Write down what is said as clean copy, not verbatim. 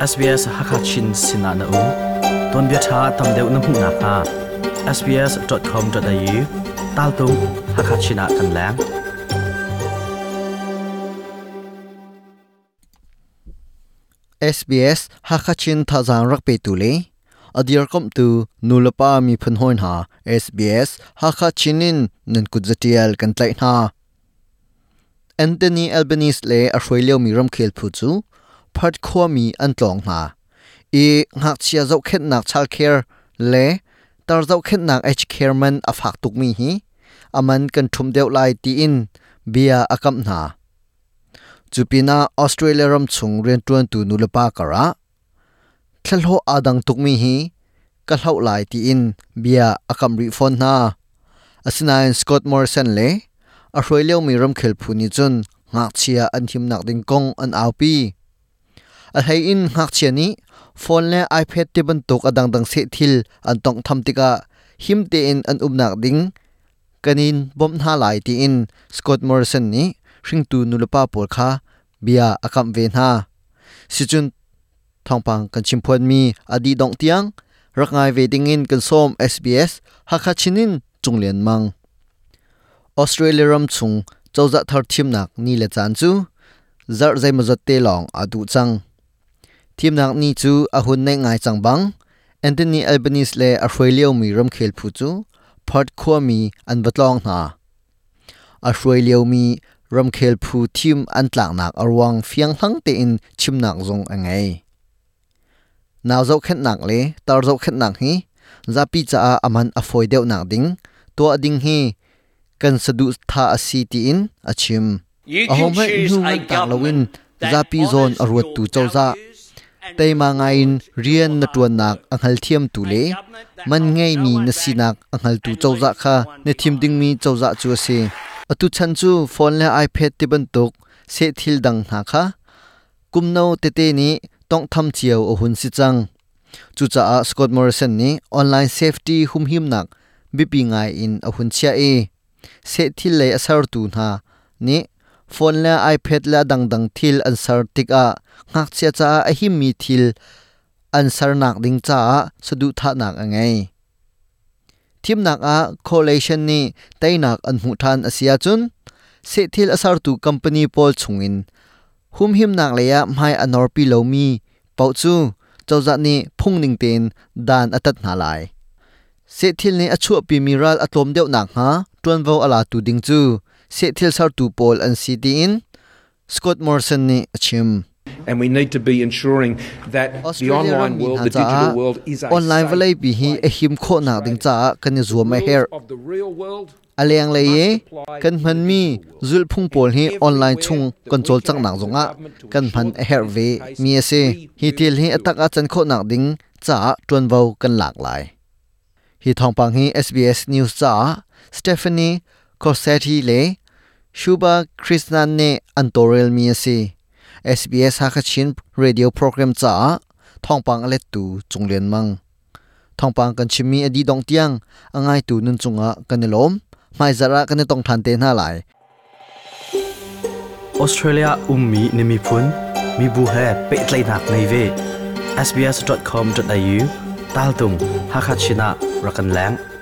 SBS Hakachin sinah na um. Tuanbia ṭha tam deuh na hmuh nakhnga sbs.com.au taltung Hakachin ah kan leng. SBS Hakachin thazaang rak petu le a dirkamhtu nulepa miphun hawi hna SBS Hakachin in nan kut zatial kan tlaih hna. Anthony Albanese le a hruai liomi ramkhel phu cu Perth khuami an tlawng hna i ngakchia zohkhenhnak childcare le tar zohkhenhnak aged care man a fak tukmi hi a man kan ṭhumh deuh lai tiin bia a kamh hna. Cu pinah Australia ram chung rianṭuantu nulepa karah thlahlawh aa dang tukmi hi ka hloh lai tiin bia a kamh rih fawn hna. Asinain Scott Morrison le a hruai liomi ramkhel phu nih cun ngakchia an himnak ding kong an aupi. A hlei in ngakchia nih phone le iPad ti bantuk a dangdang seh thil an tawnghtham tikah him tein an umnak ding kan in bawmh hna lai tiin Scott Morrison nih hringtu nulepa pawl kha bia a kamh ve hna. Sicun thawngpang kan chimphuanmi a dih dongh tiang rak ngai ve dingin kan sawm SBS Hakha Chin in Cung Lian Mang. Australia ram chung cozah thar thimnak ni le caan cu zarh zeimawzat te lawng aa duh cang. Thimnak ni cu a hun naih ngai cang bang Anthony Albanese le a hruai liomi ramkhel phu cu Perth khuami an va tlawng hna. A hruai liomi ramkhel phu thim an tlaknak a ruang fianghlang tein chimnak zong a ngei. Nau zohkhenhnak le tar zohkhenhnak hi zapi caah a man a fawi deuhnak ding tuah ding hi kan saduhthah a si tiin a chim. Ahohmanh hnu nganh tak loin zapi zawn a ruattu cozah, teima ngaiin rian na ṭuannak a hngalthiamtu le man ngeimi na sinak a hngaltu cozah kha na thim dingmi cozah cu a si. Atu chan cu phone le iPad ti bantuk sehthil dang hna kha kum no tete nih tawnghtham cio a hun si cang. Cucaah Scott Morrison nih online safety humhimnak biapi ngai in a hun chiah i sehthil lei a sertu hna nih phone le iPad le a dangdang thil an ser tikah ngakchia caah a himmi thil an sernak ding caah saduhthahnak a ngei. Thimnak ah coalition nih teinak an hmuh ṭhan a si ahcun sehthil a sertu company pawl chungin humhimnak lei ah hmai a norpi lomi paoh cu cozah nih phungning tein dan a tat hna lai. Sehthil nih a chuahpimi ral a tlawm deuh nakhnga ṭuanvo a latu ding cu sehthil sertu pawl an si tiin Scott Morrison nih a chim. And we need to be ensuring that the Australia online rammi world, hna the digital caah world is a online safe vawleipi hi place. a him khawhnak ding caah kan i zuam a Rules herh. of the real world A lenglei i must apply kan in the hmanmi digital world. zulhphung And pawl hi online everywhere chung that kan we can cawlcanghnak act as a zongah government to kan hman ensure a herh that ve this is the case, mi a si. we Hi will thil hi a do tak it. ah can khawhnak ding caah ṭuanvo kan lak lai. Hi thawngpang hi SBS News caah Stephanie Corsetti le Shubha Krishnan nih an tawlrelmi a si. SBS Hakachin radio program caah thawngpang a lettu Cung Lian Mang. Thawngpang kan chimmi a dih dongh tiang a ngaitu nun cungah kan i lawm. Hmaizarh ah kan i tong ṭhan te hna lai. Australia ummi na miphun, mibu he pehtlaihnak ngei ve. sbs.com.au taltung Hakachin ah rak kan leng.